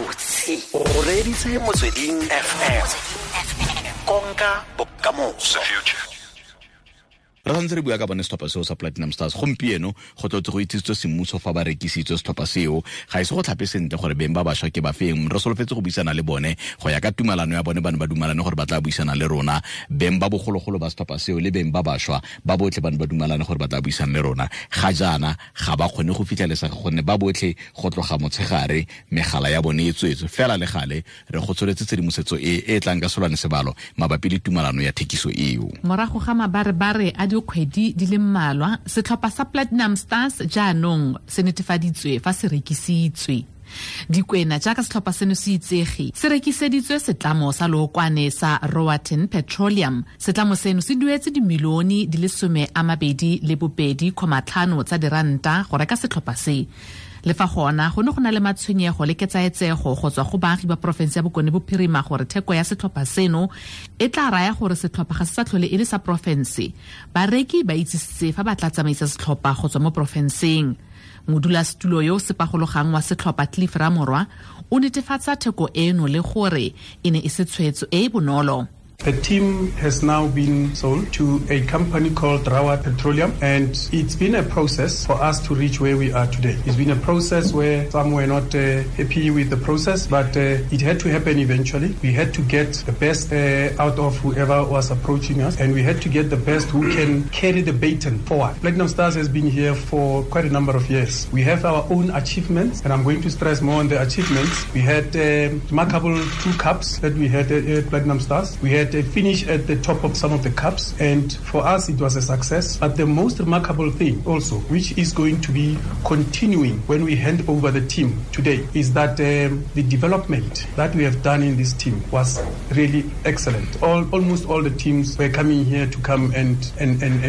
Gabotse o reeditse Motsweding FM, konka bokamoso. Re santse re bua ka bone setlhopha seo sa Platinum Stars. Gompieno go tlotse go itsisitswe semmuso fa ba rekisitswe setlhopha seo. Ga ise go tlhape sentle gore beng ba bašwa ke ba feng. Re solofetse go buisana le bone go ya ka tumalano ya bone. Ba ne ba dumalane gore ba tla buisana le rona, beng ba bogologolo ba setlhopha seo le beng ba bašwa ba botlhe. Ba ne ba dumalane gore ba tla buisana le rona. Ga jaana ga ba kgone go fitlhelesega gonne ba botlhe go tloga motshegare megala ya bone e tswetswe. Fela le gale re go tsholetse tshedimosetso e e tlang ka solwane sebalo mabapi le tumalano ya thekiso eo. Morago ga mabarebare a dikgwedi di le mmalwa, setlhopha sa Platinum Stars jaanong se netefaditswe fa se rekisitswe. Dikwena, jaaka setlhopha seno se itsege, se rekiseditswe setlamo sa lookwane sa Roaten Petroleum. Setlamo seno se duetse dimilione di le 22.5 tsa diranta go reka setlhopha se. Le fa gona go ne go na le matshwenyego le ketsaetsego go tswa go baagi ba porofense ya Bokone Bophirima gore theko ya setlhopha seno e tla raya gore setlhopha ga se sa tlhole e le sa porofense, bareki ba itsisitse fa ba tla tsamaisa setlhopha go tswa mo porofenseng. Modulasetulo yo o sepagologang wa setlhopha, Cliff Ramorwa, o netefatsa theko eno le gore e ne e se tshwetso e e bonolo. The team has now been sold to a company called Rawat Petroleum, and it's been a process for us to reach where we are today. It's been a process where some were not happy with the process, but it had to happen eventually. We had to get the best out of whoever was approaching us, and we had to get the best who can carry the baton forward. Platinum Stars has been here for quite a number of years. We have our own achievements, and I'm going to stress more on the achievements. We had remarkable two cups that we had at Platinum Stars. We had a finish at the top of some of the cups, and for us it was a success. But the most remarkable thing also, which is going to be continuing when we hand over the team today, is that the development that we have done in this team was really excellent. Almost all the teams were coming here to come and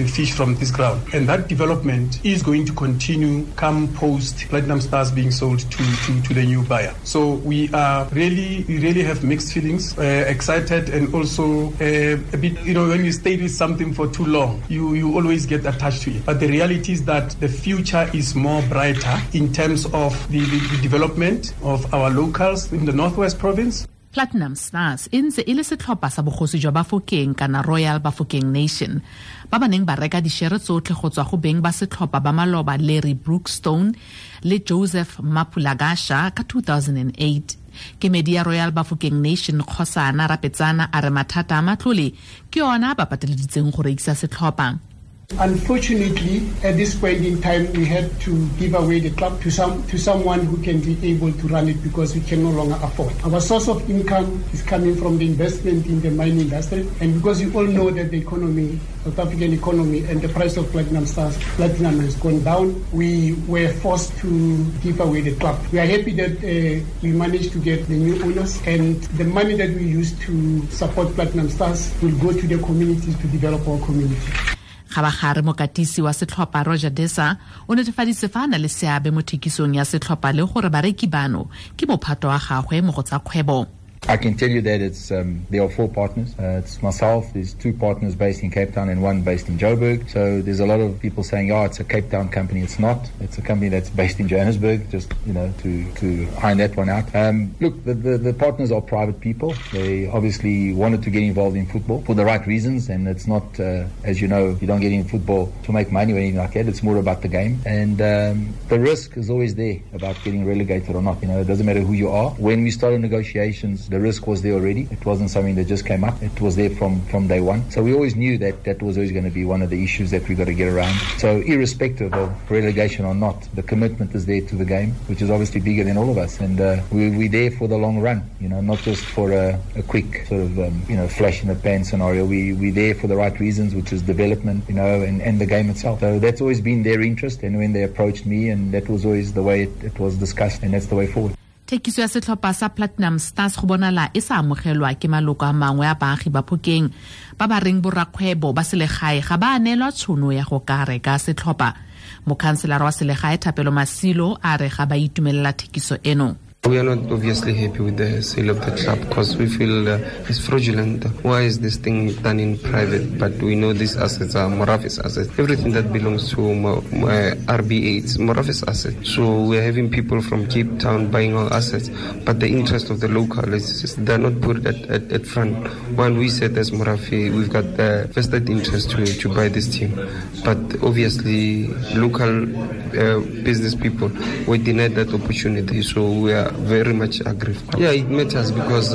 fish from this ground. And that development is going to continue come post Platinum Stars being sold to the new buyer. So we really have mixed feelings, excited and also a bit, when you stay with something for too long, you always get attached to it. But the reality is that the future is more brighter in terms of the development of our locals in the Northwest Province. Platinum Stars e ntse e le setlhopha sa bogosi jwa Bafokeng kana Royal Bafokeng Nation, ba ba neng ba reka dišere tsotlhe go tswa go beng ba setlhopha ba maloba, Larry Brookstone le Joseph Mapulagasha, ka 2008. Kemedi ya Royal Bafokeng Nation, Kgosana Rapetsana, a re mathata a matlole ke yona ba pateleditseng go rekisa setlhopha. Unfortunately, at this point in time, we had to give away the club to someone who can be able to run it because we can no longer afford. Our source of income is coming from the investment in the mining industry, and because you all know that the economy, South African economy, and the price of Platinum Stars, platinum has gone down, we were forced to give away the club. We are happy that we managed to get the new owners, and the money that we use to support Platinum Stars will go to the communities to develop our community. Gabagare, mokatisi wa setlhopha, Roger Desa, o netefaditse fa a na le seabe mo thekisong ya setlhopha le gore bareki bano ke mophato wa gagwe mo go tsa kgwebo. I can tell you that it's there are four partners. It's myself. There's two partners based in Cape Town and one based in Joburg. So there's a lot of people saying, "Oh, it's a Cape Town company." It's not. It's a company that's based in Johannesburg. Just to iron that one out. Look, the partners are private people. They obviously wanted to get involved in football for the right reasons, and it's not, as you know, you don't get in football to make money or anything like that. It's more about the game, and the risk is always there about getting relegated or not. It doesn't matter who you are. When we started negotiations, the risk was there already. It wasn't something that just came up. It was there from day one. So we always knew that that was always going to be one of the issues that we got to get around. So irrespective of relegation or not, the commitment is there to the game, which is obviously bigger than all of us. And we're there for the long run, not just for a quick sort of, flash in the pan scenario. We're there for the right reasons, which is development, and the game itself. So that's always been their interest. And when they approached me, and that was always the way it was discussed, and that's the way forward. Thekiso ya setlhopha sa Platinum Stars go bonala e sa amogelwa ke maloko a mangwe a baagi ba Phokeng, ba ba reng borakgwebo ba selegae ga ba neelwa tšhono ya go ka reka setlhopha. Mokhanselara wa selegae, Thapelo Masilo, a re ga ba itumelela thekiso eno. We are not obviously happy with the sale of the club because we feel it's fraudulent. Why is this thing done in private? But we know these assets are Morafe's assets. Everything that belongs to RBA, it's Morafe's asset. So we are having people from Cape Town buying our assets, but the interest of the local is just, they're not put at front. While we said as Morafe, we've got the vested interest to buy this team. But obviously local business people were denied that opportunity, so we are very much aggrieved. Yeah, it matters because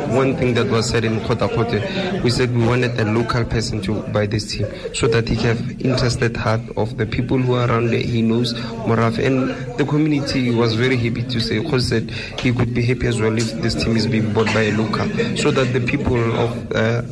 one thing that was said in Kota Kote, we said we wanted a local person to buy this team so that he can have interested heart of the people who are around there. He knows Morafe, and the community was very happy to say, because said he could be happy as well if this team is being bought by a local, so that the people of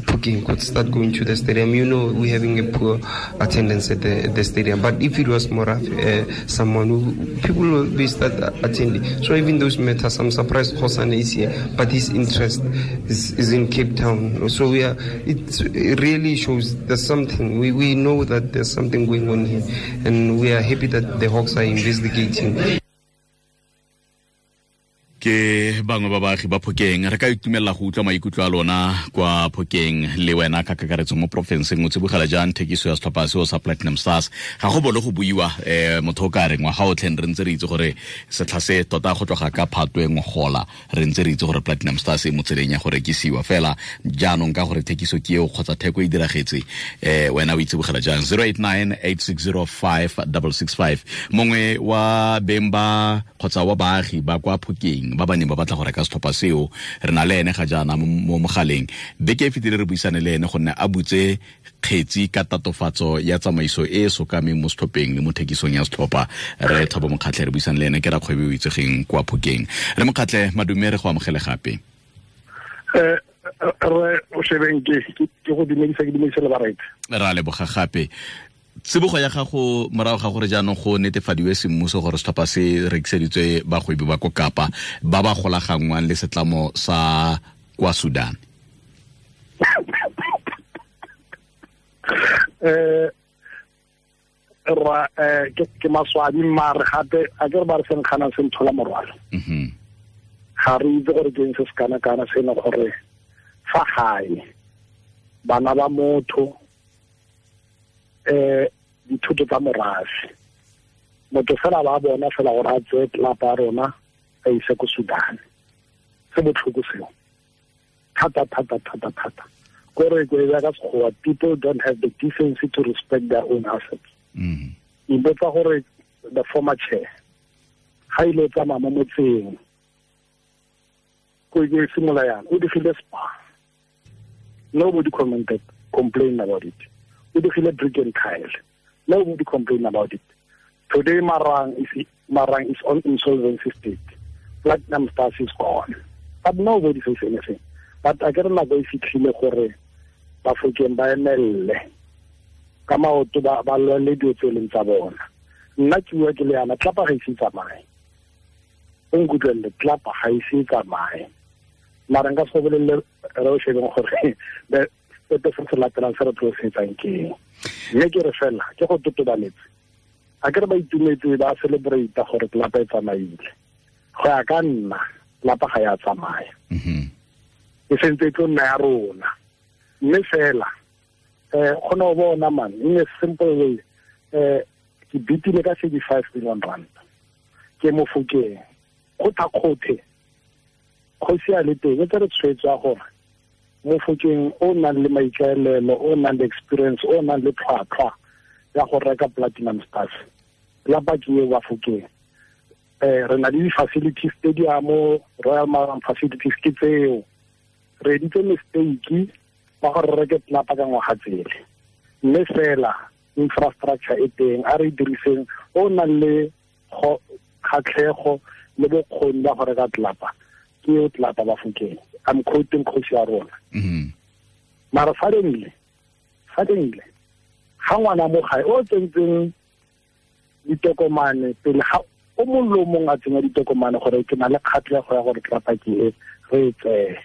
Phokeng could start going to the stadium. You know, we're having a poor attendance at the stadium, but if it was Morafe, someone who people will be start attending. So even those matters, I'm surprised Hosana is here, but his interest is in Cape Town. So we are, it really shows there's something. We know that there's something going on here, and we are happy that the Hawks are investigating. Ke bangwe ba baagi ba Phokeng re ka itumelela go utlwa maikutlo a lona kwa Phokeng le wena ka kakaretso mo porofenseng o tsibogela jang thekiso ya setlhopha seo sa Platinum Stars. Ga go bolo go buiwa motho o ka reng ngwaga otlhe re ntse re itse gore setlha se tota go tloga ka Phatwe ngogola re ntse re itse gore Platinum Stars e mo tseleng ya go rekisiwa fela jaanong ka gore thekiso ke eo kgotsa theko e diragetse wena o itsibogela jang. 0898605665 mongwe wa beng ba kgotsa wa baagi ba kwa Phokeng ba ba neng ba batla go reka setlhopha seo re na le ene ga jaana mo mogaleng. Beke e fetile re buisane le ene gonne a butse kgetsi ka tatofatso ya tsamaiso e e sokameng mo setlhopheng le mo thekisong ya setlhopha. Re Thabo Mokgatlhe re buisane le ene ke rakgwebo o itsegeng kwa Phokeng. Re Mokgatlhe, madume, re go amogele gape. Re o shebeng ke go dumedisa, ke dumedisa le bareetsi. Ra leboga gape. Tsibogo ya gago morago ga gore jaanong go netefadiwe semmuso gore setlhopha se rekiseditswe bagwebi ba ko Kapa ba ba golaganngwang le setlamo sa kwa Sudan. Ra ke maswabi mare gape a ke re ba re seng kgana se nthola morwalo. Ga re itse gore ke eng se se kana-kana se e leng gore fa gae bana ba motho dithuto tsa morafe motho fela ba bona fela gore a tseye tlelapa ya rona a ise ko Sudan. Se botlhoko seo thata thata thata thata. Kore ko e ka Sekgowa, people don't have the decency to respect their own assets. Ipotsa gore the former chair ga ile tsamaya mo motseng ko e simolola yana o digile spa, nobody commented, complained about it. O digile brick and tile, nobody complained about it. Today Marang is on insolvency state. Platinum Stars is gone, but nobody says anything. But a ke re nako e fitlhile gore Bafokeng ba emelle ka maoto ba lwele dilo tse e leng tsa bona. Nna ke bua ke le yana, tlapa ga ise e tsamaye. O nkutlwelele, tlapa ga ise e tsamaye. Mara nka se go bolelele re o shebeng gore sepe se se latelang se re tlo se etsang ke eng. Mme ke re fela ke go totobaletse. A ke re ba itumetse ba celebrate gore tlapa e tsamaile. Go ya ka nna, tlapa ga ya tsamaya. E sentse e tlo nna ya rona. Mme fela kgona go bona man in a simple way, ke bitile ka 35 million rand ke mo Phokeng go thakgothe kgosi a le teng e tsere tshwetso ya gore mo Phokeng o nang le maikaelelo, o nang le experience, o nang le tlhwatlhwa ya go reka Platinum Stars lapa ke eo wa Phokeng. Re na le di-facilities stadium, Royal Marang facilities ke tseo. Re editse mistake ba gore re reke tlelapa ka ngwaga tsele, mme fela infrastructure e teng a re diriseng. O nang le kgatlhego le bokgoni ba go reka tlelapa ke eo tlelapa ba Phokeng. I'm quoting kgosi ya rona. Mara suddenly ga ngwana mo gae o tsentseng ditokomane pele ga o mongwe le o mongwe a tsenya ditokomane gore ke na le kgatlhego ya gore tlelapa ke e re e tseye,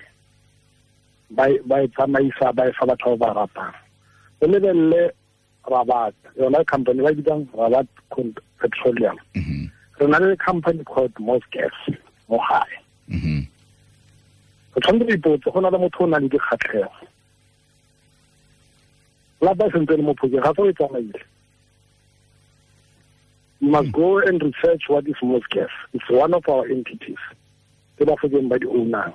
ba e tsamaisa ba e fa batho ba ba ratang. O lebelele Rabat, yona company ba bitsang Rabat Petroleum. Re na le company called Mosgas. mo gae. O tshwanetse go ipotse go na le motho o nang le dikgatlhego. Lapa e sentse le mo phokeng ga se o e tsamaile. You must go and research what is Mossgas. It's one of our entities. Ke Bafokeng ba di ownang.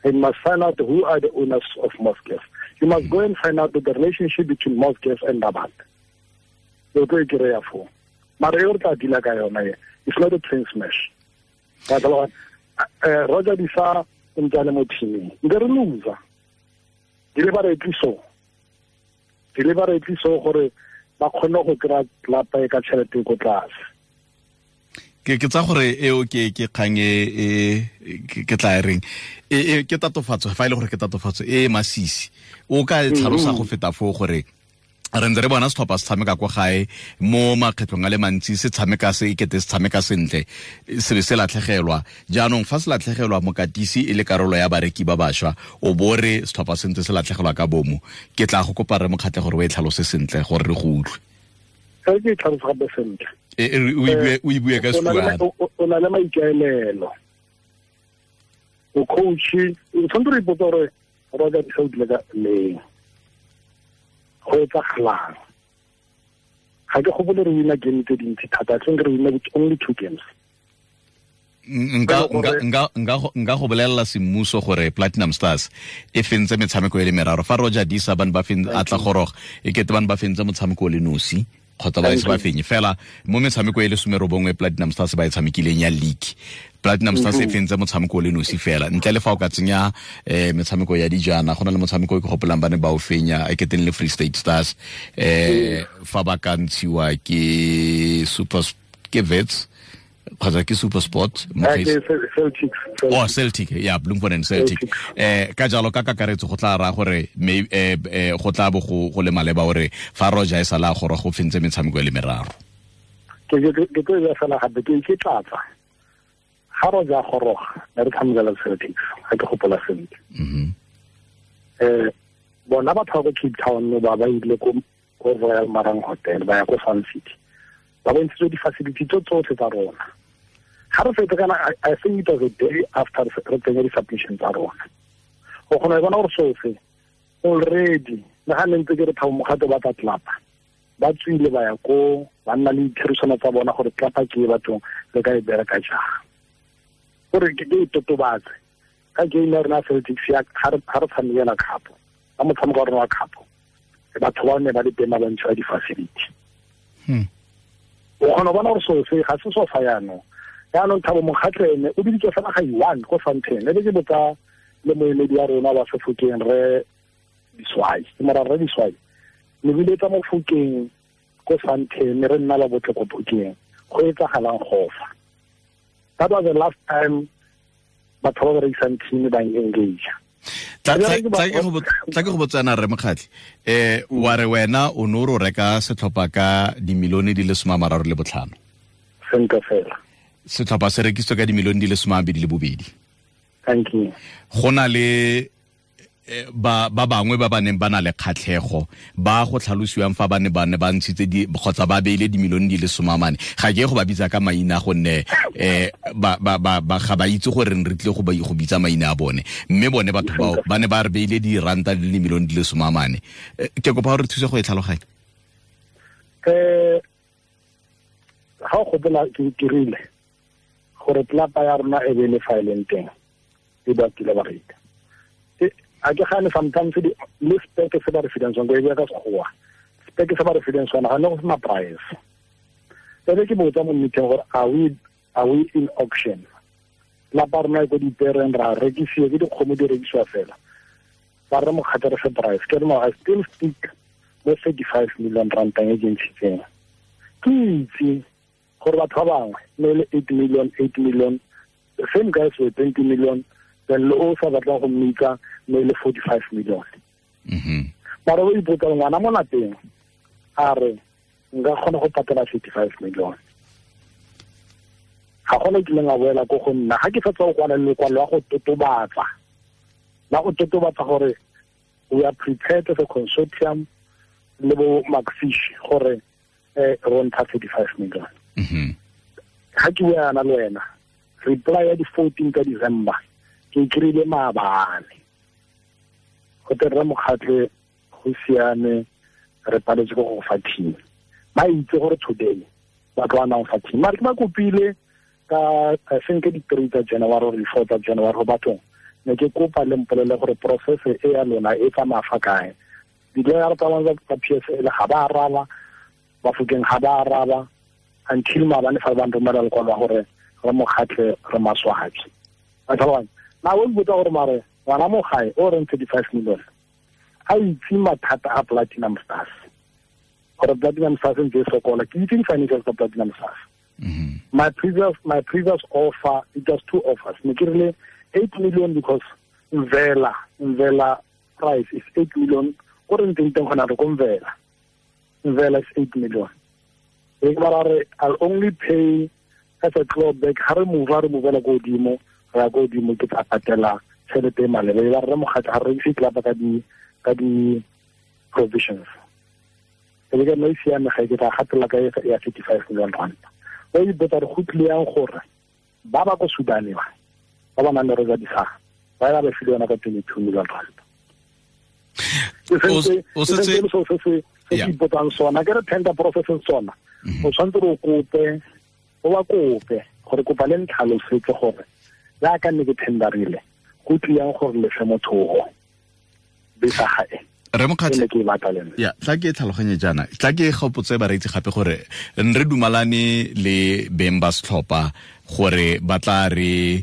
And you must find out who are the owners of Mossgas. You must go and find out the relationship between Mossgas and Rabat. O tlo e kry-a foo. Mara e re tla deala ka yona e, it's not a train smash. Roger Disa o ntse a le mo teaming. Nke re loser. Deliberately so. Deliberately so gore ba kgone go kry-a tlapa e ka tšhelete ko tlase. Ke tsa gore eo ke kgang e ke tla e reng e ke tatofatso, fa e le gore ke tatofatso e masisi. O ka e tlhalosa go feta foo gore re ntse re bona setlhopha se tshameka kwa gae mo makgetlhong a le mantsi, se tshameka se ekete se tshameka sentle, se be se latlhegelwa. Jaanong fa se latlhegelwa mokatisi e le karolo ya bareki ba bašwa, o bo re setlhopha se ntse se latlhegelwa ka bomo. Ke tla go kopa re Mokgatle gore o e tlhalose sentle gore re go utlwe. Ke e tlhalose gape sentle. O e bue ka Setswana. O na le maikaelelo. O coach, o tshwanetse go ipotsa gore Roger Disa o dile ka leng. Go etsagalang. Ga ke gopole re wina game tse dintsi thata, I think re wina with only 2 games. Nka go bolelela semmuso gore Platinum Stars e fentse metshameko e le meraro. Fa Roger Disa ba ne ba a tla goroga, e kete ba ne ba fentse motshameko o le nosi kgotsa ba ise ba fenye. Fela mo metshameko e le 19 Platinum Stars ba e tshamekileng ya league, Platinum Stars e fentse motshameko o le nosi fela. Ntle le fa o ka tsenya metshameko ya dijana, go na le motshameko e ke gopolang ba ne ba o fenya e keteng le Free State Stars, fa ba ka ntshiwa ke Super ke Wits kgotsa ke Super Sport, Celtic. Oh, Celtic, yeah, Bloemfontein Celtic. Ka jalo ka kakaretso go tla ra gore go tla bo go le maleba gore fa Roger e sala gore go fentse metshameko e le meraro. Ke tlo e fela gape ke tlatsa. Ga Roger goroga ne re tshamekela Celtics, ga ke gopola sentle. Bona batho ba ko Cape Town ba ba ile ko Royal Marang Hotel, ba ya ko Sun City. Ba bontshitswe di-facility tso tsotlhe tsa rona. Ga re fetsa kana, I think it was a day after re tsenya di-submission tsa rona. O kgona go bona gore seo se already le ga ne ntse ke re Thabo Mokgato ba tla tlapa, ba tswile ba ya ko ba nna le ditherisano tsa bona gore tlapa ke e bathong re ka e bereka jang. Gore ke e totobatse ka game ya rona Celtics ya ga re tshamekela cup, ka motshameko wa rona wa cup, batho ba ne ba le teng ba bontshiwa di-facility. O kgona go bona gore seo se ga se so fa jaanong. Jaanong Thabo Mokgatle ene o biditswe fela ga i-1 ko Sandton. E be ke botsa le moemedi wa rona wa Sefokeng re Diswai, ke mora re Diswai. Ne biletsa mo Fokeng ko Sandton, re nna la botle ko Phokeng. Go etsagalang go fa. That was the last time batho ba berekisang team ba engage. Tla ke go botsana re Mokgatle. Wa re wena o ne o reka setlhopha ka dimilione di le 35. Sentle fela. Setlhopha se rekisitswe ka dimilione di le 22. Thank you. Go na le ba bangwe ba ba neng ba na le kgatlhego ba go tlhalosiwang fa ba ne ba ntshitse di kgotsa ba beile dimilione di le 40. Ga ke go ba bitsa ka maina gonne ba ga ba itse gore re tle go bitsa maina a bone, mme bone batho bao ba ne ba re beile diranta di le milione di le 40. Ke kopa gore thuse go e tlhaloganya. Ga o gopola ke dirile gore tlapa ya rona e be le fa e leng teng e ba kile ba reka. A ke gane sometimes le speke se ba re fileng sone, go e bua ka Sekgowa, speke se ba re fileng sone ga ne go sena price. Ebe ke botsa mo meeting gore are we in auction? Lapa rona e ko dipereng ra rekisiwa ke dikgomo di rekisiwa fela. Ba re Mokgatle re fe price. Ke re no, I still stick mo 35 million rantang e ke ntshitseng. Ke itse gore batho ba bangwe ne le 8 million, 8 million, the same guys were 20 million, then le o sa batlang go mmitsa ne le 45 million. Mara o ipotsa ngwana mo lapeng a re nka kgona go patela 35 million. Ga gona kileng a boela ko go nna ga ke fetsa go kwala lekwalo la go totobatsa, la go totobatsa gore we are prepared as a consortium le bo Macfish gore re ntsha 35 million. Ga ke bua yana le wena Reply ya di 14 ka December ke kry-ile maabane go te rre Mokgatle go siame re paletse go go fa team. Ba itse gore today ba tlo anang fa team, mare ke ba kopile ka I think di 3 tsa January or di 4 tsa January go bathong ne ke kopa le mpolele gore process e ya lona e tsamaya fa kae. Di-lawyer tsa bona tsa PSL ga ba araba, Bafokeng ga ba araba until maabane fa ba nromela lekwalo la gore re Mokgatle re maswabi. A tlhaloganya na o mpotsa gore mare ngwana mo gae o reng 35 million a itse mathata a Platinum Stars, gore Platinum Stars ntse e sokola. Ke itse di-financials tsa Platinum Stars. My previous offer, it was two offers. Ne ke rile 8 million because Mvela price is 8 million. Ko re ntseng teng gona re ko Mvela. Mvela is 8 million. E ba re I'll only pay as a clawback ha re move re movela ko godimo, ra ko godimo ke tla patela tšhelete e maleba. E ba re Mokgatle ha re ise club ka di provisions. E le ka no siame ga ke tla gatela ka ya 35 million rand. O ipotsa re go tlile yang gore ba ba ko Sudan ba nang le Rosa Disaga ba ba file yona ka 22 million rand. O setse se ipotsang sona ke re tender process sona o tshwanetse o kope o ba kope gore kopa le ntlhalosetse gore jaaka nne ke tenderile go tlile yang gore le fe motho o bisa gae. Re Mokgatle ya tla ke tlhaloganye jaana, tla ke gopotse bareetsi gape gore re dumalane le beng ba setlhopha gore ba tla re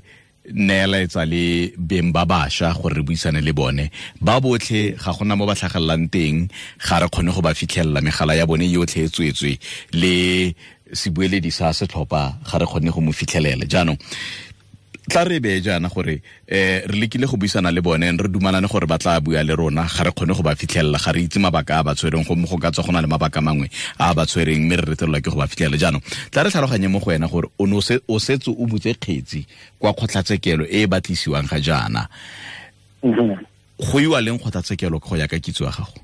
neeletsa le beng ba bašwa gore re buisane le bone ba botlhe. Ga gona mo ba tlhagelelang teng, ga re kgone go ba fitlhelela, megala ya bone yotlhe e tswetswe le sebueledi sa setlhopha ga re kgone go mo fitlhelela. Jaanong tla re bee jaana gore re lekile go buisana le bone, re dumalane gore ba tla bua le rona, ga re kgone go ba fitlhelela, ga re itse mabaka a ba tshwereng, gomme go ka tswa go na le mabaka mangwe a ba tshwereng mme re retelelwa ke go ba fitlhelela. Jaanong tla re tlhaloganye mo go wena gore o ne o setse o butse kgetsi kwa kgotlatshekelo e e batlisiwang ga jaana. Go iwa leng kgotlatshekelo go ya ka kitso ya gago?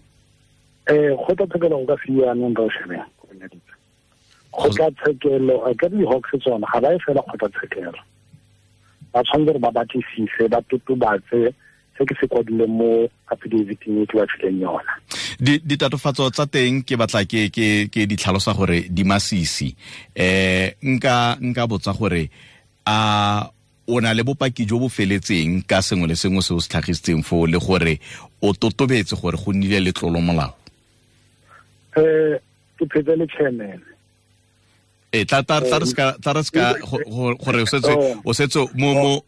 Kgotlatshekelo go ka fiwa anong re o shebeng kgotlatshekelo a ka di-Hawks tsona ga ba e fela kgotlatshekelo, ba tshwanetse gore ba batlisise ba totobatse se ke se kwadileng mo affidavit-eng e ke ba fileng yona. Ditatofatso tsa teng ke batla ke di tlhalosa gore di masisi. Nka botsa gore a o na le bopaki jo bo feletseng ka sengwe le sengwe se o se tlhagisitseng foo, le gore o totobetse gore go nnile le tlolo molao? Ke phetse le chairman. Tla re ska gore o setse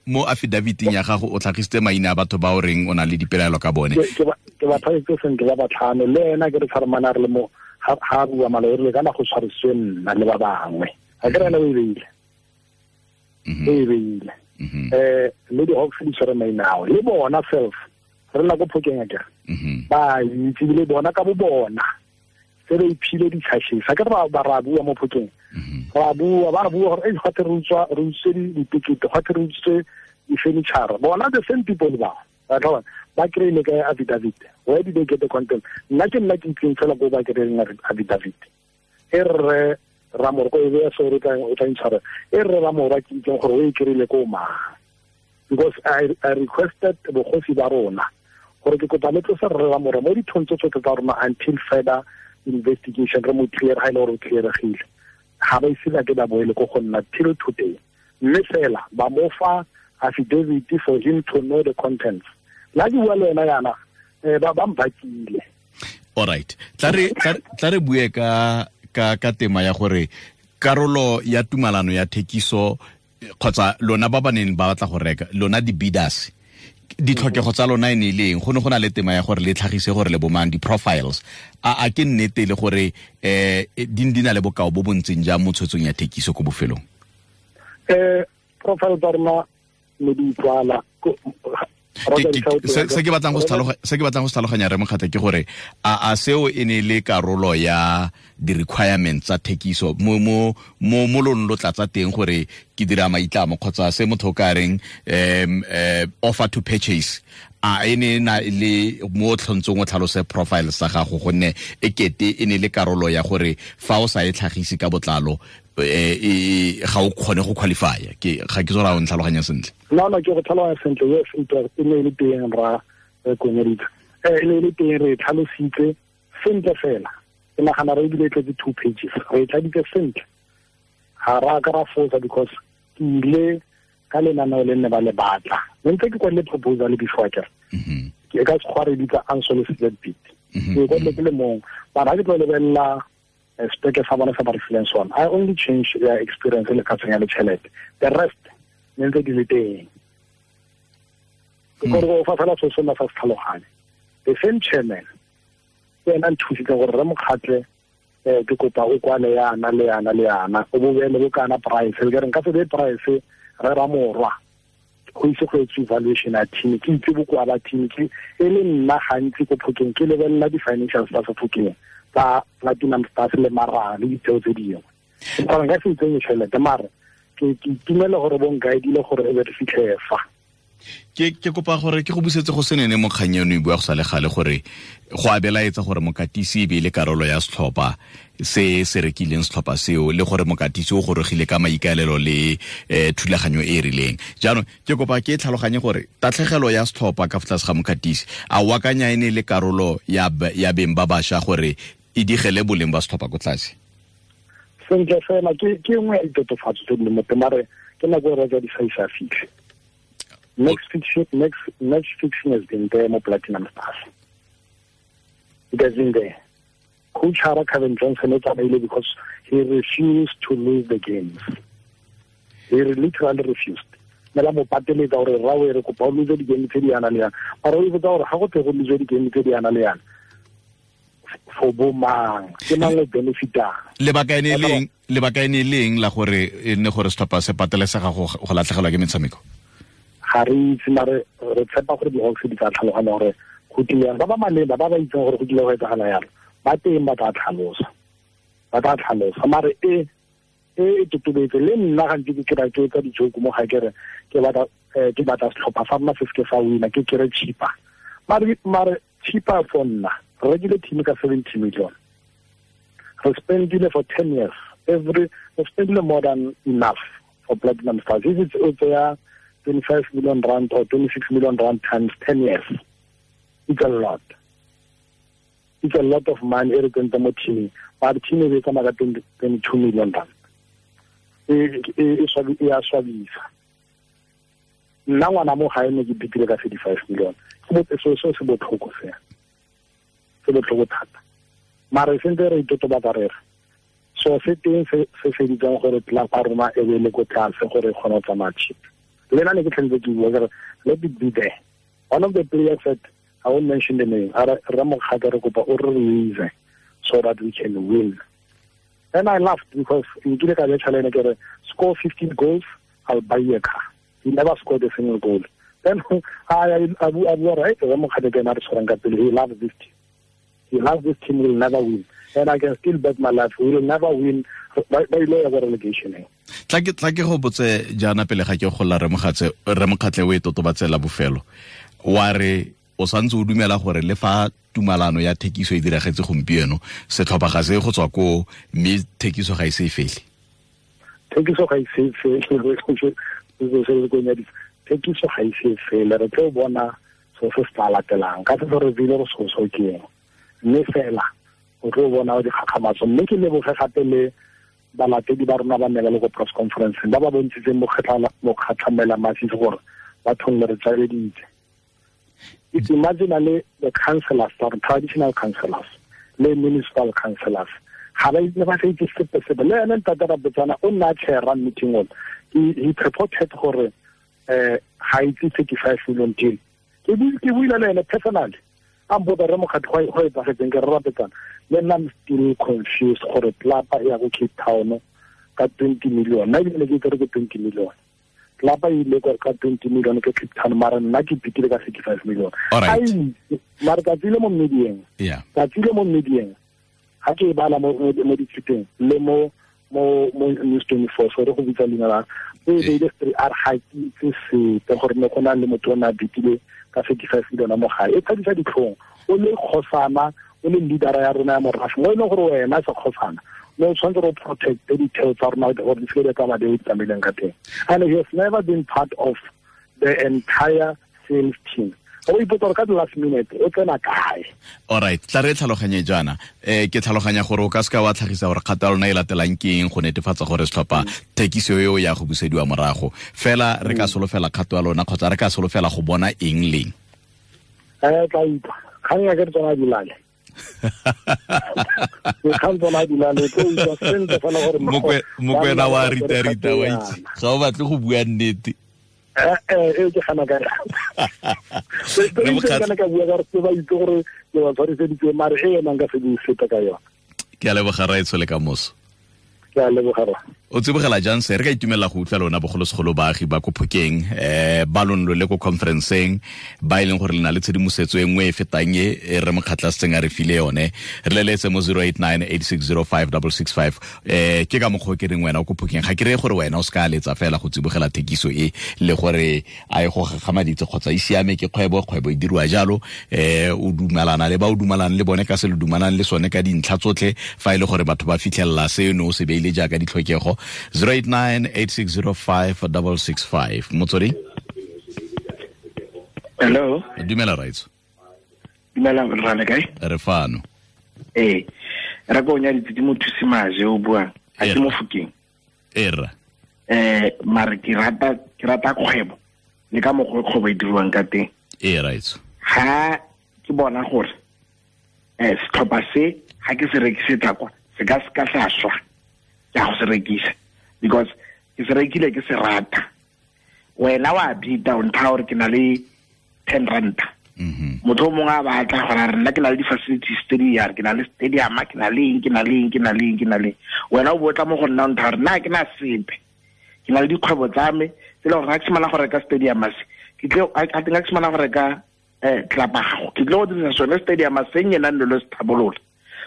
mo affidavit-ing ya gago o tlhagisitse maina a batho ba o reng o na le dipelaelo ka bone. Ke ba tlhagisitse sentle ba batlhano, le ena ke re tshwaremane re le mo ha bua malo re le kana go tshwariswe nna le ba bangwe. Ga ke re ena o e beile. O e beile. Le di-Hawks di tshwere maina ao le bona self re nna ko Phokeng akere. Ba itse le bona ka bo bona se re iphile di-charges. Ga ke re ba ra bua mo Phokeng. Ra bua ba bua gore gate re utswa re utswe ditekete, gate re utswe di-furniture. Bona the same people ba ba kry-ile ka affidavit. Where did they get the content? Nna ke nna ke itseng fela ko ba kry-ileng affidavit. E rre Ramorwa e beya sorry o tla intshwara. E rre Ramorwa ke itseng gore o e kry-ile ko mang. Because I requested bogosi ba rona gore ke kopa le tlose rre Ramorwa mo dithong tse tsotlhe tsa rona until further investigation re mo clear ha ile gore o clearegile. Ga ba ise ba ke ba boele ko go nna till today. Mme fela ba mo fa affidavit for him to know the contents. La ke bua le wena yana ba mpakile. All right. Tla re bue ka tema ya gore karolo ya tumalano ya thekiso kgotsa lona ba ba neng ba batla go reka lona di-bidders ditlhokego tsa lona e ne e le eng? Go ne go na le tema ya gore le tlhagise gore le bomang di-profiles a ke nnete le gore di na le bokao bo bo ntseng jang mo tshwetsong ya thekiso ko bofelong? Profile tsa rona ne di utlwala. Se ke batlang go se tlhaloganya re Mokgatle ke gore a seo e ne le karolo ya di-requirements tsa thekiso mo lone lo tlatsa teng gore ke dira maitlamo kgotsa se motho o ka reng offer to purchase a e ne na le mo tlhontsong o tlhalose profile sa gago, gonne e kete e ne le karolo ya gore fa o sa e tlhagise ka botlalo ga o kgone go qualify. Ke ga ke tsora o ntlhaloganya sentle. No, ke go tlhaloganya sentle. Yes, it was e ne le teng ra konyeditse. E ne le teng re tlhalositse sentle fela. Ke nagana re ebile tletse 2 pages. Re tladitse sentle. Ga ra ka ra fosa because ke ile ka lenaneo le nne ba le batla. Ne ntse ke kwadile proposal before ke. Ke ka sekgwa re bitsa unsolicited bid. Ke kwadile ke le mong. Mara ha ke tlo lebelela speke sa bona sa ba re fileng sona. I only change their experience le ka tsenya le tšhelete. The rest ne ntse di le teng. Ke gore go fa fela se sona sa se tlhaloganye. The same chairman ke ena nthusitse gore re mokgatle ke kopa o kwale yana le yana le yana o bo beele bo kana price le ke re nka se be price re ra morwa go itse go etse evaluation ya team ke itse bokoa ba team ke e le nna gantsi ko Phokeng ke lebelela di-financial tsa Phokeng tsa Platinum Stars le Mara le ditseo tse dingwe. Gore nka se itsenye tšhelete mare ke itumele gore bo nkaedile gore e be re fitlhe fa. Ke kopa gore ke go busetse go senene mo kgang eno e bua go sa le gale gore go abelaetsa gore mokatisi e be le karolo ya setlhopha se se rekileng setlhopha seo le gore mokatisi o gorogile ka maikaelelo le thulaganyo e e rileng. Jaanong ke kopa ke tlhaloganye gore tatlhegelo ya setlhopha ka fa tlase ga mokatisi a o akanya e ne le karolo ya beng ba bašwa gore e digele boleng ba setlhopha ko tlase? Sentle fela ke nngwe ya ditotofatso tse di leng mo teng mare ke nako e re ja di sa isa fitlhe. Next fiction has been there, mo Platinum Stars. It has been there. Coach Hara Kevin Johnson is available because he refused to lose the games. He literally refused. Mela mo pateletsa gore ra we re kopa o lose di-game tse di yana le yana. Mara o ipotsa gore ga go tle go lose di-game tse di yana le yana for bo mang, ke mang o benefitang. Lebaka e ne leng la gore e nne gore setlhopha se patelesega go latlhegelwa ke metshameko? Ga re itse mare re tshepa gore di-Hawks di tla tlhaloganya gore go tlile yang. Ba ba maleba ba ba itseng gore go tlile go etsagala yalo ba teng ba tla tlhalosa mare e totobetse le nna gantsi ke kry-a ke etsa di-joke mo ga ke re ke batla setlhopha sa rona se seke sa wina ke kry cheaper mare cheaper for nna re rekile team ka 70 million, re spendile for 10 years re spendile more than enough for Platinum Stars. If it's o 25 million rand or 26 million rand times 10 years, it's a lot. It's a lot of money. E re tsentse mo teaming, but team e tsamaya ka 22 million rand. E a swabisa. Nna ngwana mo gae ne ke bitile ka 35 million. So se botlhoko se. Se botlhoko thata. Mare sentse re itotobatsa re re. So se teng se feditseng gore club ya rona e be le ko tlase gore e kgone go tsamaya cheap. Le nna ne ke tlhentse ke bua ke re let it be there. One of the players said, I won't mention the name, re mokgatlha re kopa o re release so that we can win. And I laughed because nkile ka betšha le ene ke re score 15 goals, I'll buy you a car. He never scored a single goal. Then a bua right, re mokgatlha ke ena re tshwarang ka pele. He loves this team. He loves this team, will never win. And I can still bet my life, we will never win. Ba ile ya go relegation. Tla ke go botse jaana pele ga ke golla re mokgatle o e totobatsela bofelo. Wa re o santse o dumela gore le fa tumalano ya thekiso e diragetse gompieno setlhopha ga se go tswa ko mme thekiso ga e se e fele. Thekiso ga e se e fele, thekiso ga e se e fele. Re tlo bona so se se tla latelang ka se re bile go so ke eng. Mme fela o tlo bona dikgakgamatso. Mme ke leboge gape le balatedi ba rona ba nne ba le ko press conference ba ba bontshitseng mokgatlhamela masisi gore bathong le re tsabeditse. It's imaginally the councillors, the traditional councillors, le municipal councillors. Ga ba itse ba sa itse sepe sepe. Le ene ntate Rabotsana o nna a chair-a meeting ona. He purported gore ga itse 35 million deal. Ke buile le ene personally. A mpotsa re mokgatlho go etsagetseng ke re Rapetsana. Le nna I'm still confused gore tlapa e ya go Cape Town ka 20 million. Nna ebile ke itse re ke 20 million. Tlapa e ile ka 20 million ke Cape Town mara nna ke pitile ka 35 million. Mara tsatsi le mo medieng. Tsatsi le mo medieng. Ga ke e bala mo dithuteng le mo News 24 so re go bitsa leina la e beile a re ga ke itse sepe gore ne go na le motho o ne a bitile ka 35 million mo gae. E tshadisa ditlhong o le kgosana o le leadera ya rona ya morafe mo e leng gore wena se kgosana Mme o tshwanetse re protecte ditheo tsa rona gore di seke di tsamaya di tsamaileng ka teng. And he has never been part of the entire sales team. O ipotsa gore ka the last minute o tsena kae. All right, tla re tlhaloganye jaana. Ke tlhaloganya gore o ka seka wa tlhagisa gore kgato ya lona e latelang ke eng go netefatsa gore setlhopha thekiso eo ya go busediwa morago. Fela re ka solofela kgato ya lona kgotsa re ka solofela go bona eng leng? Tla utlwa. Kgang ya ke re tsona dilale. Dikgang tsona dilale tlo utlwa sentle fela gore Mokwena wa rita wa itse. Ga o batle go bua nnete. Ke gana ka re ka bua ka re ba itse gore ke ba tshwariseditse mare e ena nka se bue sepe ka yona. Ke a leboga raetsho le ka moso. Ke a leboga ra. O tsibogela jang se re ka itumela go utlwa lona bogolosegolo baagi ba ko Phokeng ba lonlo le ko conferenceng ba e leng gore le na le tshedimosetso e nngwe e fetang e re Mokgatla setseng a re file yone. Re leletse mo 0898605665. Ke ka mokgwa ke reng wena o ko Phokeng ga ke reye gore wena o se ka letsa fela go tsibogela thekiso e le gore a e go gagamaditse kgotsa e siame ke kgwebo e dirwa jalo. O dumalana le ba o dumalang le bone ka se le dumalang le sone ka dintlha tsotlhe fa e le gore batho ba fitlhelela seno o se beile jaaka ditlhokego. 0898605665. Motswedi. Hello. Dumela raitso. Dumela rra le kae? Re fano. Ee. Ra go nya ditse mothusi maje o buang. A ke mo Fokeng. Era. Mare ke rata kgwebo. Le ka mokgwa kgwebo e dirwang ka teng. Ee raitso. Ha ke bona gore setlhopha se ha ke se rekisetsa kwa se ka se ka sa swa. Ke a go se rekisa because ke se rekile ke se rata. Wena wa bita o ntha gore ke na le 10 ranta. Motho o mongwe a batla gore a re nna ke na le di-facilities tse di yare, ke na le stadium, ke na le eng, ke na le eng, ke na le eng, ke na le eng. Wena o botla mo go nna o ntha gore nna ke na sepe. Ke na le dikgwebo tsa me tse e leng gore ga ke simolola go reka stadium se, ke tle a teng ga ke simolola go reka tlapa gago, ke tle go dirisa sone stadium se nyenang le lo se tlhabolola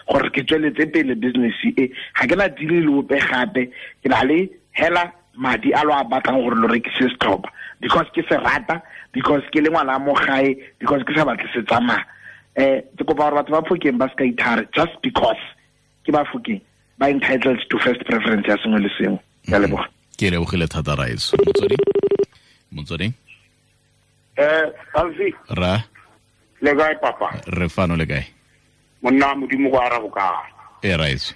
gore ke tsweletse pele business e. Ga ke na deal le ope gape, ke na le hela madi a lo a batlang gore lo rekise setlhopha because ke se rata, because ke le ngwana mo gae, because ke sa batle se tsamaya. Ke kopa gore batho ba Phokeng ba se ka ithare just because ke ba Phokeng ba entitled to first preference ya sengwe le sengwe. Ke a leboga. Ke lebogile thata raetso. Motswedi. Alfi. Ra. Le kae papa? Re fano le kae? Monna modimo go arabo ka. E raetso.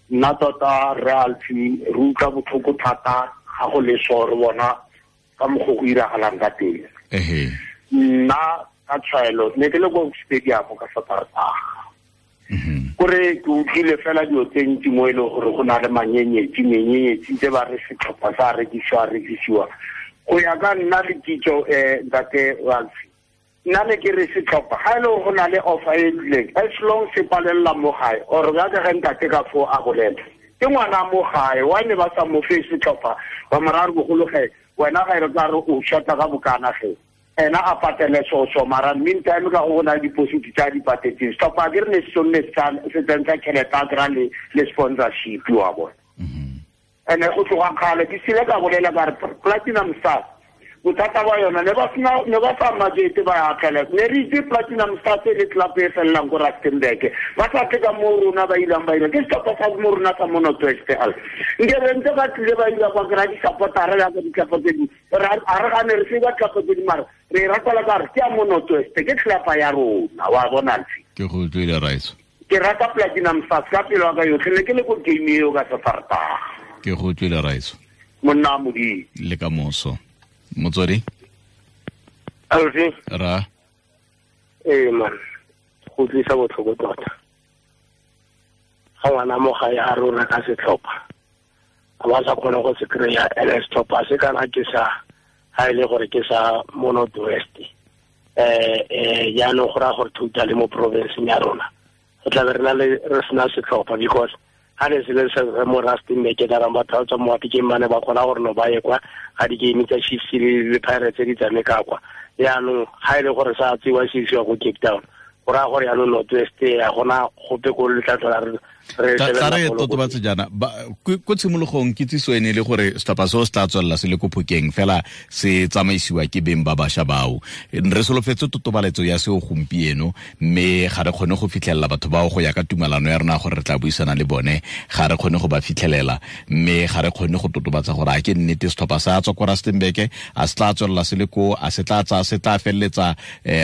Nna tota re Alfi re utlwa botlhoko thata ga go le so re bona ka mokgwa go iragalang ka teng. Nna ka tshwaelo ne ke le ko stadium ka Saterdag. Kore ke utlwile fela dilo tse ntsi mo e leng gore go na le manyenyetsi tse ba re setlhopha sa rekisiwa. Go ya ka nna le kitso ntate Alfi, nna ne ke re setlhopha ga e le go na le offer e tlileng as long se palela mo gae or ya ka ge ntate ka fo a bolela ke ngwana mo gae wa ne ba sa mo fe setlhopha ba morare bogolo ge wena ga e re tla re o shota ka bokana ge ena a patele so mara meantime ka go na le deposit tsa di patetseng setlhopha ke re ne se sonne se tsentsa tšhelete a kry-a le sponsorship wa bona. Ene go tloga kgale ke sile ka bolela ka re Platinum Stars bothata ba yona ne ba sa majete ba akgela ne re itse Platinum Stars e le club e felelang ko Rustenburg ba sa tle ka mo rona ba ilang ba ira ke setlhopha sa mo rona sa mo North West al nke re ntse ba tlile ba ila kwa kry-a di-supportara yaka ditlhopha tse dingwe a re gane re se ba tlhopha tse di mara re ratela ka re ke ya mo North West ke tlhopha ya rona wa bona Alfi. Ke go utlwile raetso. Ke rata Platinum Stars ka pelo ya ka yotlhe ne ke le ko game eo ka Saterdag. Ke go utlwile raetso. Monna modimo le ka moso. Motswedi. Alfi. Ra. Man, go tlisa botlhoko tota. Ga ngwana mo gae a rona ka setlhopha a ba sa kgone go se kry-a ene setlhopha se kana ke sa ga e le gore ke sa mo North West. Jaanong go raya gore totally mo provinceng ya rona re tlabe re na le re sena setlhopha because ha ne se le se mo Rustenburg ke tla batho ba tswa mo Mafikeng ba ne ba kgona gore no ba ye kwa ga di-game tsa Chiefs le Pirates di tshameka kwa. Jaanong ga e le gore sa tsewa se isiwa ko Cape Town go raya gore jaanong North West ya gona gope ko le tla tlhola Tla re totobatse jaana ko tshimologong kitsiso ene le gore setlhopha seo se tla tswelela se le ko Phokeng fela se tsamaisiwa ke beng ba bašwa bao. Re solofetse totobaletso ya seo gompieno, mme ga re kgone go fitlhelela batho bao go ya ka tumalano ya rona gore re tla buisana le bone, ga re kgone go ba fitlhelela, mme ga re kgone go totobatsa gore a ke nnete setlhopha sa tswa ko Rustenburg, a se tla tswelela se le ko, a se tla tsaya se tla feleletsa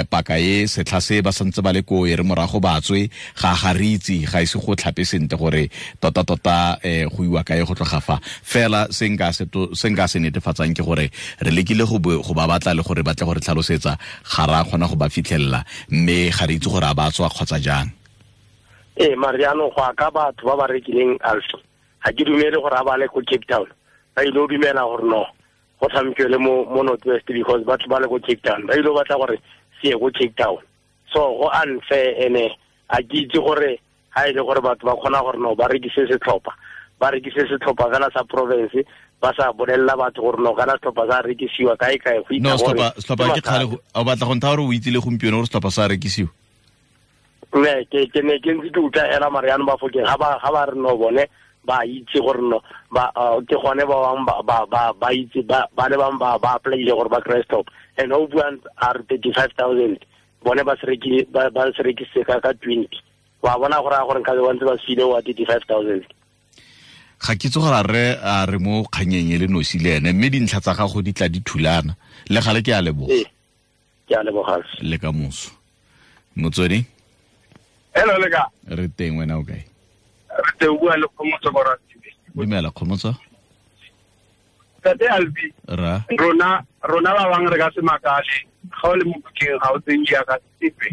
paka e setlha se ba santse ba le ko e re morago ba tswe, ga re itse, ga ise go tlhape sentle gore tota tota go iwa kae go tloga fa. Fela se nka se netefatsang ke gore re lekile go ba batla le gore batle gore tlhalosetsa, ga ra kgona go ba fitlhelela, mme ga re itse gore a ba tswa kgotsa jang. Ee, Mariano, go ka batho ba ba rekileng Alfi, ga ke dumele gore a ba le ko Cape Town, ba ile go dumela gore no go tshamekiwe le mo North West, because batho ba le ko Cape Town ba ile go batla gore se ye ko Cape Town. So go unfair, ene a ke itse gore ha ile gore batho ba kgona gore no ba rekise setlhopha, ba rekise setlhopha fela sa province, ba sa bolelela batho gore no kana setlhopha sa rekisiwa kae kae go itse gore setlhopha ke kgale o batla go ntha gore o itse le gompieno gore setlhopha sa rekisiwa. Ne ke ne ke ntse ke utlwa hela Mariano ba Phokeng ga ba re no bone ba itse gore no ba ke gone ba bang ba itse ba le bang ba applyile gore ba kry stop, and o buang are 35,000 bone ba se rekile ba se rekise ka 20. Wa bona gore a gore nka be ba ntse ba file wa 35,000. Ga ke itse gore re a re mo kganyeng e le nosi le ene, mme dintlha tsa gago di tla di thulana le gale. Ke a leboga. Ke a leboga. Le ka moso. Motswedi. Hello, le ka. Re teng, wena o kae? Re teng, bua le Kgomotso ko Ratibe. Dumela Kgomotso. Tate Albi. Ra. Rona ba bang re ka se makale, ga o le mo Phokeng ga o tseng jaaka sepe.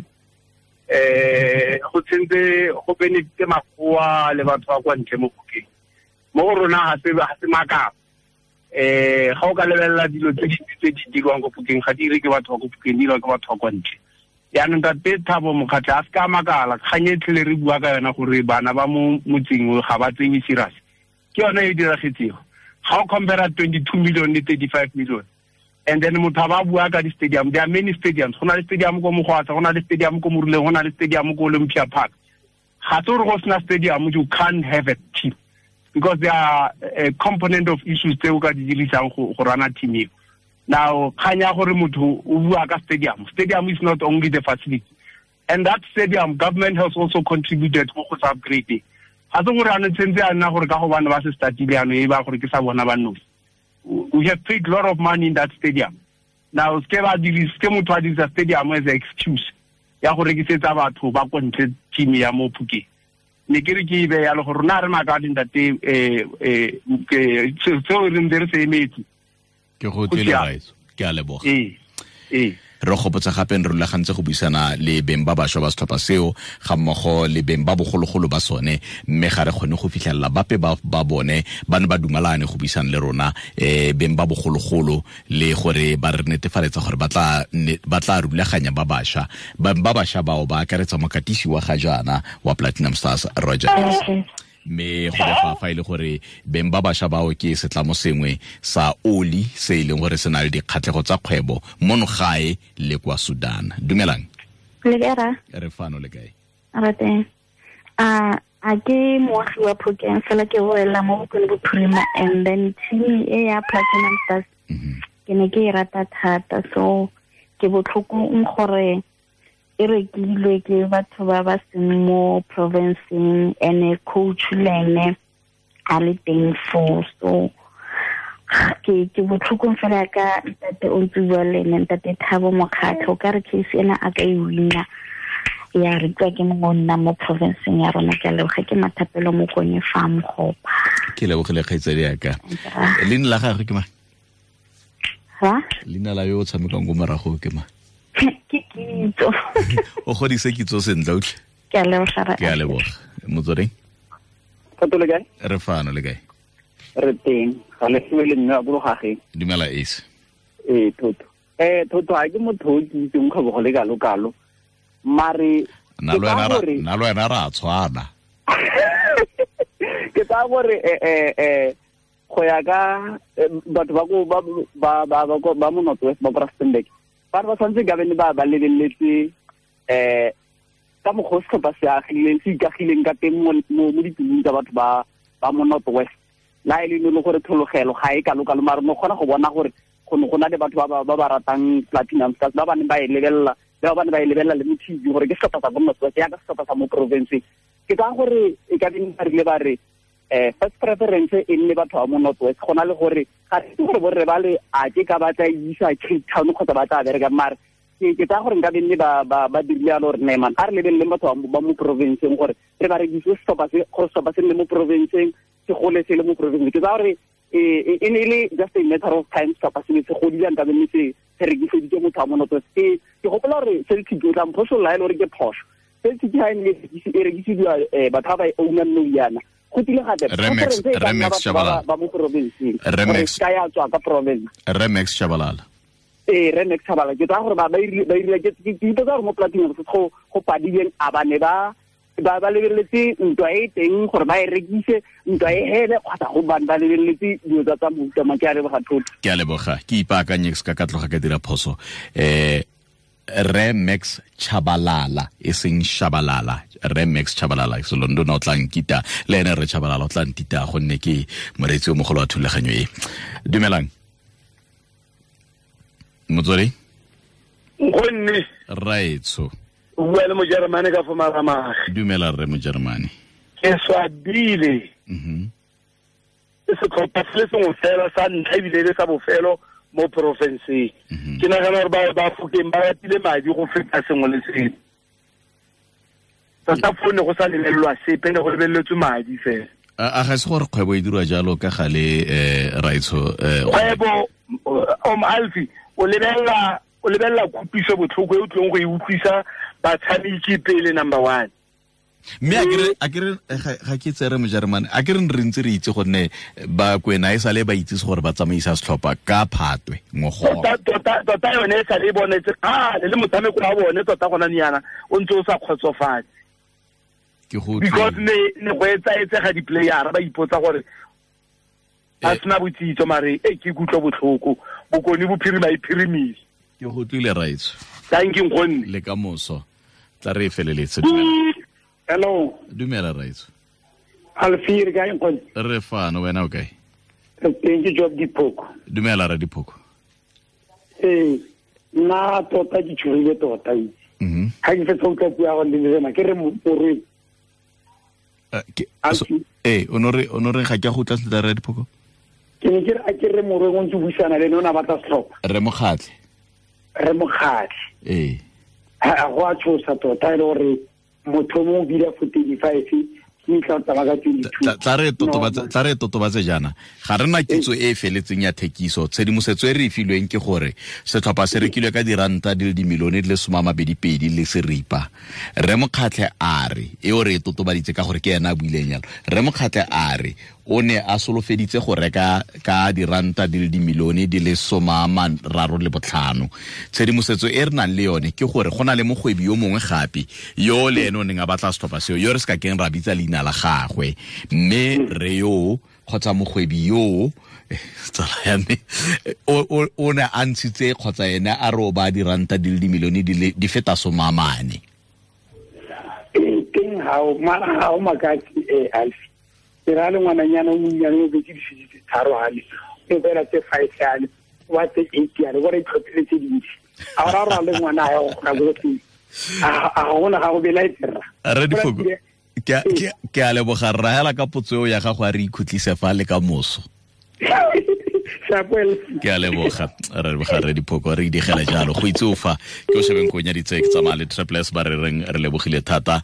Go tsentse go benefite makgowa le batho ba kwa ntle mo Phokeng. Mo go rona ga se makala. Ga o ka lebelela dilo tse dintsi tse di dirwang ko Phokeng, ga di dire ke batho ba ko Phokeng, di dirwa ke batho ba kwa ntle. Jaanong tate Thabo Mokgatlhe a se ka makala, kgang e tlhele re bua ka yona gore bana ba mo motseng ga ba tsewe serious, ke yone e diragetsego. Ga o compare 22 million le 35 million, and then motho a ba bua ka di-stadium, there are many stadiums. Go na le stadium ko Mogwatsa, go na le stadium ko Moruleng, go na le stadium ko Olympia Park. Ga se gore go sena stadium you can't have a team, because there are a component of issues tse o ka di dirisang go rana team eo. Now, kgang ya gore motho o bua ka stadium, stadium is not only the facility, and that stadium government has also contributed go go upgrade. Ga se gore ano tshentse a nna gore ka gobane ba se startile ano e ba gore ke sa bona ba nosi. We have paid a lot of money in that stadium. Now, ke motho a dirisa stadium as an excuse ya go rekisetsa batho ba ko ntle team ya mo Phokeng. Ne ke re ke e beya le gore rona re makale ntate, seo re ntse re se emetse. Ke go tlile raitso, ke a leboga. Ee. Re gopotsa gape re rulagantse go buisana le beng ba bašwa ba setlhopha seo ga mmogo le beng ba bogologolo ba sone, mme ga re kgone go fitlhelela bape ba bone ba ne ba dumalane go buisana le rona, beng ba bogologolo, le gore ba re netefaletsa gore ba tla rulaganya ba bašwa. Ba bašwa bao ba akaretsa mokatisi wa ga jaana wa Platinum Stars, Roger. Mme go befa fa ile gore beng ba bašwa bao ke setlamo sengwe sa oli se e leng gore se na le dikgatlhego tsa kgwebo mono gae le kwa Sudan. Dumelang. Le kae ra? Re fano, le kae? Re teng. A ke moagi wa Phokeng, fela ke wela mo Bokone Bophirima, and then team e ya Platinum Stars ke ne ke e rata thata, so ke botlhokong gore e rekilwe ke batho ba ba seng mo provinceng, ene coach le ene a le teng foo. So ke botlhokong fela ka ntate o ntse bua le ene, ntate Thabo Mokgatlhe, o ka re case ena a ka e wina ya rekiwa ke mongwe o nna mo provinceng ya rona. Ke a leboga, ke Mathapelo Mokonye fa Mogopa. Ke lebogile kgaitsadi yaka. Leina la gagwe ke mang? Leina la yo o tshamekang ko morago ke mang? Ke Kitso. O godise Kitso sentle utlwe. Ke a leboga. Ke a leboga. Motsweding. Thato le kae? Re fano, le kae? Re teng. Ga le fiwe le mme wa Bologageng. Dumela Ace. Ee, Thotho. Thotho ga ke motho o ke itseng kgwebo go le kalo-kalo. Mare nna le wena ra tshwana. Ke tsaya gore go ya ka batho ba ko ba mo North West ba ko Rustenburg, ba re ba tshwanetse ka bene ba lebeletse ka mokgwa setlhopha se agileng se ikagileng ka teng mo ditulong tsa batho ba mo North West la e le gore thologelo ga e kalo-kalo mare no kgona go bona gore go ne go na le batho ba ba ratang Platinum Stars ba ba neng ba e lebelela le ba ba neng ba e lebelela le mo TV gore ke setlhopha sa ko North West yaka setlhopha sa mo province. Ke tsaya gore e ka beng ba rile ba re first preference e nne batho ba mo North West go na le gore ga re itse gore borre ba le a ke ka ba tla isa Cape Town kgotsa ba tla bereka mare ke tsaya gore nka benne ba dirile yalo gore ne man a re lebeleleng batho ba mo provinceng gore re ba rekise setlhopha se gore setlhopha se nne mo provinceng se gole se le mo provinceng. Ke tsaya gore e ne e le just a matter of time setlhopha se ne se godile nka benne se rekiseditse motho wa mo North West. Ke gopola gore Celtic o tla mphosolola e le gore ke phoso. Celtic ha e ne e rekisiwa batho ba ba e ownang nou yana go tile gape Remex Shabalala ba mo provinceng gore ka ya tswa ka province Remex Shabalala Remex Shabalala. Ke tsaya gore ba irile ke ipotsa gore mo Platinum go padileng a ba ne ba lebeletse ntwa e teng gore ba e rekise ntwa e hele kgotsa go bane ba lebeletse dilo tsa mofuta mang. Ke a leboga thotho. Ke a leboga ke ipaakanye se ka tloga ka dira phoso. Remex Chabalala e seng Shabalala, Remex Chabalala Selondona o tla nkita le ene re Chabalala o tla ntita gonne ke moreetsi o mogolo wa thulaganyo e. Dumelang motswedi gonne raetso o bua le Mojeremane ka fo Maramage. Dumela rre Mojeremane. Ke swabile. Setlhopha se le sengwe fela sa ntlha ebile le sa bofelo mo porofenseng. Ke nagana gore ba Fokeng ba ratile madi go feta sengwe le sengwe. Tota fo ne go sa lebelelwa sepe, ne go lebeletswe madi fela. A ga se gore kgwebo e dirwa jalo ka gale raetsho? Kgwebo Alfie o lebelela kutlwiso botlhoko e o tlong go e utlwisa batshameki pele number 1. Mme a kere ga ke tsere Mojeremane a kere re ntse re itse gonne ba Kwena e sale ba itse gore ba tsamaisa setlhopha ka Phatwe ngogola. Tota yone e sale e bonetse le motshameko wa bone tota gona nyana o ntse o sa kgotsofatse. Ke go because ne go etsaetsega di-playera ba ipotsa gore ba sena botsitso mare e ke kutlwa botlhoko Bokone Bophirima e phirimile. Ke go tlile raetso. Thank you nkgonne. Le ka moso tla re e feleletse. Hello. Dumela raetso. Alfie re kae nkgonne? Re fano, wena o kae? Teng ke Job Diphoko. Dumela ra Diphoko. Nna tota ke tshogile tota itse. Ga ke fetsa go utlwa puo ya go le ke re morweng. O no re ga ke a go utlwa sentle ra Diphoko? Ke ne ke re a ke re morweng o ntse buisana le ene o ne a batla setlhopha. Re Mokgatlhe. Re Mokgatlhe. Go a tshosa tota e le gore motho mo o bile for 35 ke tla tsamaya ka 22. Tla re totobatse jaana ga re na kitso e e feletseng ya thekiso. Tshedimosetso e re e filweng ke gore setlhopha se rekilwe ka diranta di le dimilione di le 22 le seripa. Re Mokgatlhe a re e o re e totobaditse ka gore ke ena a buileng jalo. Re Mokgatlhe a re o ne a solofeditse go reka ka diranta di le dimilione di le 35. Tshedimosetso e re nang le yone ke gore go na le mogwebi yo mongwe gape yo le ene o neng a batla setlhopha seo yo re se ka keng ra bitsa leina la gagwe, mme re yo kgotsa mogwebi yo tsala ya me o ne a ntshitse kgotsa ene a re o ba diranta di le dimilione di feta 40. Teng ga o makatse Alfie. Ke ra le ngwananyana o monnyane o betse difisi tse 3 hale o fela tse 5 hale wa tse 8 hale gore itlhophile tse dintsi a ra ra le ngwana a ya go kgona go teng a gona ga go belaetse rra. Re Diphoko ke a leboga rra hela ka potso eo ya gago a re ikhutlise fa le ka moso. Ke a leboga re leboga re Diphoko re digela jalo go itse o fa ke o shebeng ko nyaditse ke tsamaya le Triple S ba re reng re lebogile thata.